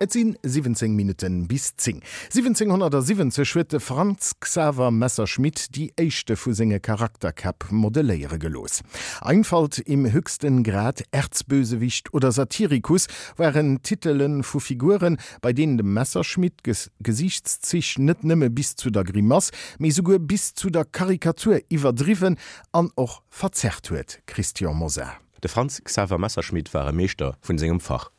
Et sinn 17 Minutten bis 10. 1770 huet de Franz Xaver Messerschmitt déi éischte vu senge Charakterkäpp modelléiere gelooss. Einfalt im höchsten Grad, Erzbösewicht oder Satirikus waren Titele vu Figuren, bei deenen dem Messerschmitt d'Gesiichtszich net nëmme bis zu der Grimass, mee souguer bis zu der Karikatur iwwerdriwwen an och verzerrt huet. Christian Mosar. De Franz Xaver Messerschmitt war e Meeschter vun sengem Fach.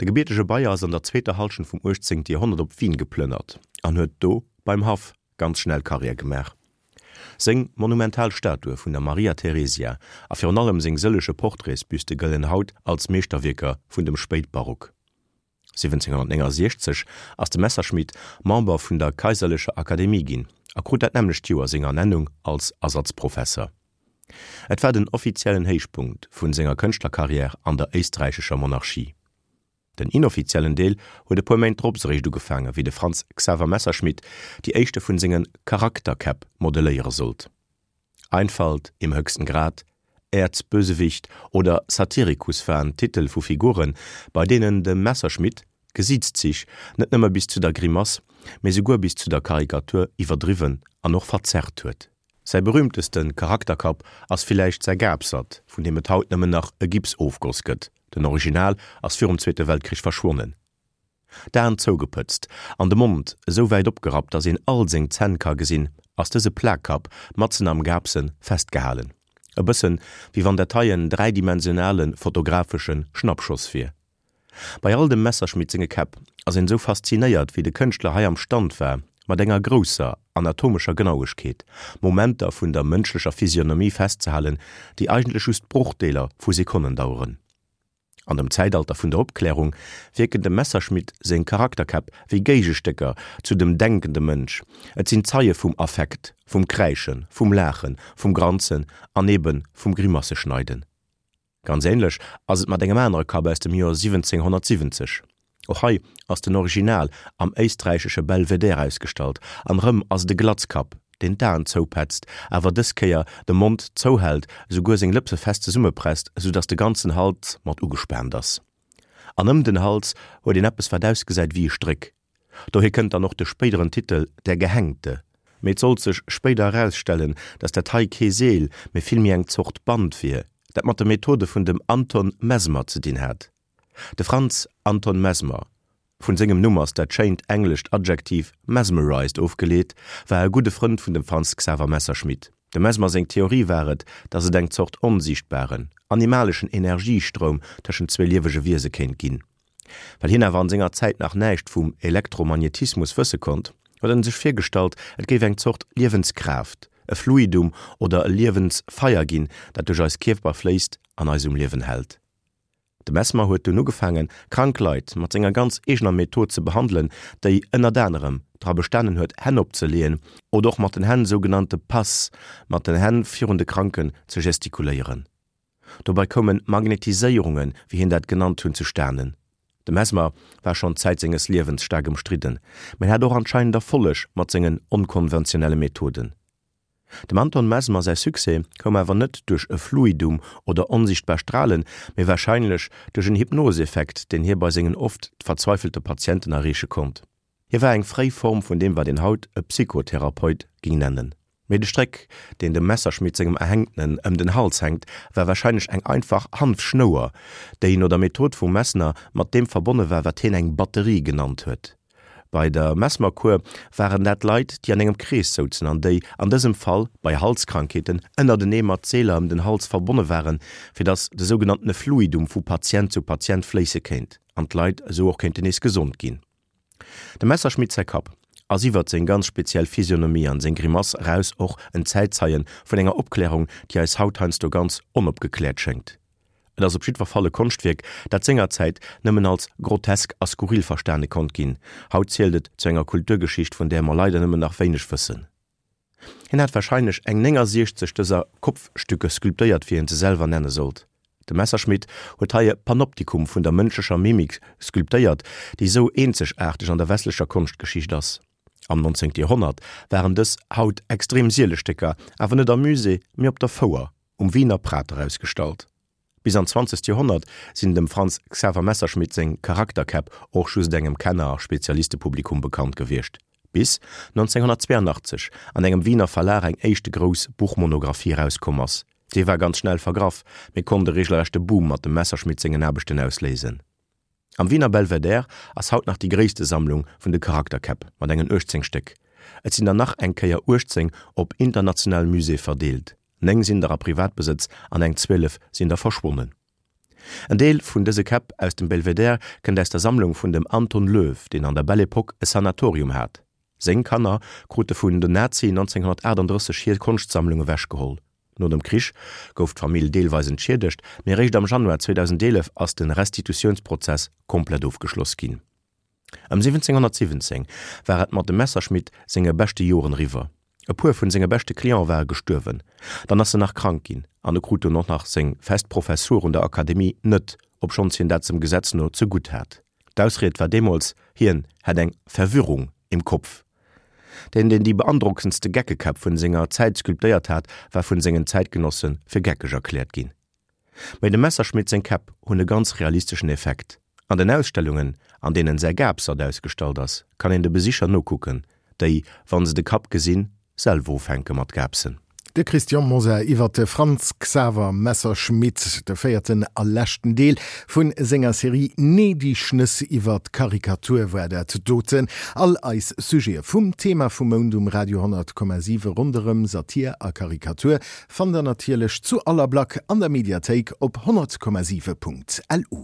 De gebiertege Bayer ass an der zweeter Hallschent vum 18. Joerhonnert op Wien geplënnert an huet do beim Haff ganz schnell Karriär gemaach. Seng monumental Statue vun der Maria Theresia a virun allem seng sëllege Portraitsbüste gëllen haut als Meeschterwierker vun dem Spéitbarock. 1769 ass de Messerschmitt Member vun der Kaiserlecher Akademie ginn a krut dat nämmlecht Joer seng Ernennung als Ersatzprofesser. Et war den offiziellen Héichpunkt vun senger Kënschtlerkarriär an der éisträichescher Monarchie. Den inoffiziellen Deel huet e puer Méint drops eréischt ugefaange wéi de Franz Xaver Messerschmitt déi éischte vun senge Charakterkäpp modeléiere sollt. Einfalt im höchsten Grad, Erzbösewicht oder Satirikus waren Titel vu Figuren, bei deenen de Messerschmitt d'Gesiitszich net nëmme bis zu der Grimass, mee souguer bis zu der Karikatur iwwerdriwwen an och verzerrt huet. Säi berühmteste Charakterkapp ass villäicht säi Gapsert, vun deem et haut nëmmen nach e Gipsofgoss gëtt, den Original ass virum Zweete Weltkrich verschwonnen. D'Aen zougepëtzt an de Mond esou wäit opgerappt, datt een all seng Zänn ka gesinn, ass dëse Plakkapp matzen am Gapse festgehalen. E bëssen, wéi wann dat hei en dräidimensionale fotografesche Schnappschoss wier. Bei all dem Messerschmitt senge Käpp ass een esou faszinéiert, wéi de Kënschtler hei am Stand war, mat enger grousser anatomescher Genauegkeet Momenter vun der mënschlecher Physionomie festzehalen, déi eigentlech just Brochdeeler vu Sekonnen daueren. An dem Zäitalter vun der Opklärung wierken dem Messerschmitt seng Charakterkäpp wéi Géigestécker zu dem denkende Mënsch, et sinn Zeie vum Affekt, vum Kräischen, vum Laachen, vum Granzen an ebe vum Grimasseschneiden. Ganz ähnlech ass et mat engem anere Kapp aus dem Joer 1770. Och hei ass den Original am éisträichesche Belvedere ausgestallt an erëm ass et e Glatzkapp, deen d'Aen zoupätzt, awer dës Kéier de Mond zouhält, esouguer seng Lëpse fest zesummepresst, esou dass de ganzen Hals mat ugespaant ass. An ëm den Hals huet een eppes wat ausgesäit wéi e Stréck. Dohier kënnt dann och de spéideren Titel Der Gehängte. Mee et sollt sech spéider erausstellen, datt dat hei kee Seel, mee villméi eng Zort Band wier, dat mat de Methode vun dem Anton Mesmer ze dinn hat. De Franz Anton Mesmer, vun sengem Numm ass dat schéint englescht Adjektiv mesmerized ofgeleet, war e gudde Frënd vun dem Franz Xaver Messerschmitt. Dem Mesmer seng Theorie war et, datt et eng Zort onsiichtbaren, animaleschen Energiestroum tëschent zwee liewege Wiese kéint ginn. Well hien awer an senger Zäit nach näischt vum Elektromagnetismus wësse konnt, huet en sech virgestallt, et géif eng Zort Liewenskraaft, e Fluidum oder e Liewensfeier ginn, dat duerch eis Kierper fléisst an eis um Liewen hält. De Mesmer huet dunn ugefaangen, krank Leit mat senger ganz eegener Method ze behandelen, déi ënnert anerem dra bestanen huet, Hänn opzeleeën oder och mat den Hänn sougenannte Passe mat den Hänn virun de Kranken ze gestikuléieren. Dobei koumen Magnetiséierungen, wéi hien dat genannt hunn, zustanen. De Mesmer war schonn Zäit senges Liewens staark ëmstridden, mä en hat och anscheinend Erfolleg mat sengen onkonventionelle Methoden. Dem Anton Mesmer säi Succès koum awer net duerch e Fluidum oder onsichtbar Stralen, mee warscheinlech duerch en Hypnoseffekt, deen hie bei sengen oft verzweifelte Patienten erreeche konnt. Hie war eng fréi Form vun deem wat een haut e Psychotherapeut ging nennen. Mee de Stréck, deen dem Messerschmitt sengem Erhängtenen ëm den Hals hänkt, war warscheinlech eng einfach Hanfschnouer, déi no der Method vum Mesner mat deem verbonne war, wat hien eng Batterie genannt huet. Bei der Mesmerkur waren dat Leit, déi an engem Krees souzen an déi, an dësem Fall bei Halskrankheeten, ënnertenee mat Seeler ëm den Hals verbonne waren, fir datt de sougenanntene Fluidum vu Patient zu Patient fléisse kéint an d'Leit esou och kéinten nees gesond ginn. Dem Messerschmitt säi Kapp ass iwwert seng ganz speziell Physionomie an seng Grimass eraus och en Zäitzeien vun enger Opklärung, déi eis haut heiansdo ganz onopgekläert schéngt. Et ass op jiddwer Fall e Konschtwierk, dat sengerzäit nëmmen als grotesk a skurril verstane konnt ginn. Haut zielt et zu enger Kulturgeschicht, vun där mer leider nëmmen nach wéineg wëssen. Hien hat warscheinlech eng 69 dëser Kopfstücke sculptéiert, wéi hien se selwer nenne sollt. De Messerschmitt huet hei e Panoptikum vun der mënschlecher Mimik sculptéiert, déi sou eenzegaarteg an der westlecher Konschtgeschicht ass. Am 19. Joerhonnert waren dës haut extrem siele Stécker awer net am Musée, mee op der Fouer um Wiener Prater ausgestallt. Bis an d'zwanzegt Joerhonnert sinn dem Franz Xaver Messerschmitt seng Charakterkäpp och just engem Kenner a Spezialistepublikum bekannt gewiescht, bis 1982 an engem Wiener Verlag eng éischte grouss Buchmonographie erauskomm ass. Déi war ganz schnell vergraff, mee konnt e regelrechte Boom mat dem Messerschmitt sengen Aarbechten ausléisen. Am Wiener Belvedere ass haut nach déi gréisste Sammlung vun de Charakterkäpp mat engen 18 Stéck. Et sinn der nach eng Kéier 18 op internationale Muséeë verdeelt, 9 sinn der a Privatbesëtz an eng 12 sinn der verschwonnen. En Deel vun dëse Käpp aus dem Belvedere kënnt aus der Sammlung vun dem Anton Löw, deen an der Belle Epoque e Sanatorium hat. Seng Kanner krute vun den Nazien 1938 hir Konschtsammlung ewechgeholl. No dem Krich gouf d'Famill deelweis entschiedegt, mee eréischt am Januar 2011 ass de Restitutiounsprozess komplett ofgeschloss ginn. Ëm 1717 war et mat dem Messerschmitt senge beschte Joren eriwwer. E puer vun senge beschte Cliente ware gestuerwen, dann ass en nach krank ginn an e krut dunn och nach seng fest Professur un der Akademie net, obschonns hien dat dem Gesetz no zegutt hat. D'Ausried war deemools, hien hätt eng Verwirrung im Kopf. Deen, deen déi beandrockendste Geckekäpp vun senger Zäit sculptéiert hat, war vun sengen Zäitgenosse fir geckeg erkläert ginn. Mee dem Messerschmitt seng Käpp hunn e ganz realisteschen Effekt. An den Ausstellungen, an deenen säi Gapsert ausgestallt ass, kann een de Besicher nokucken, déi, wann se de Kapp gesinn, selwer ufänke mat gaapsen. De Christian Mosar iwwer de Franz Xaver Messerschmitt, de véierten a leschten Deel vu senger Serie Nee, déi Schnëss iwwer d'Karikatur war dat doten. All eis Sujete vum Thema vum Mount um Radio 100,7 ronderëm Satir a Karikatur fannt der natierlech zu aller Black an der Mediathéik op 100,7.lu.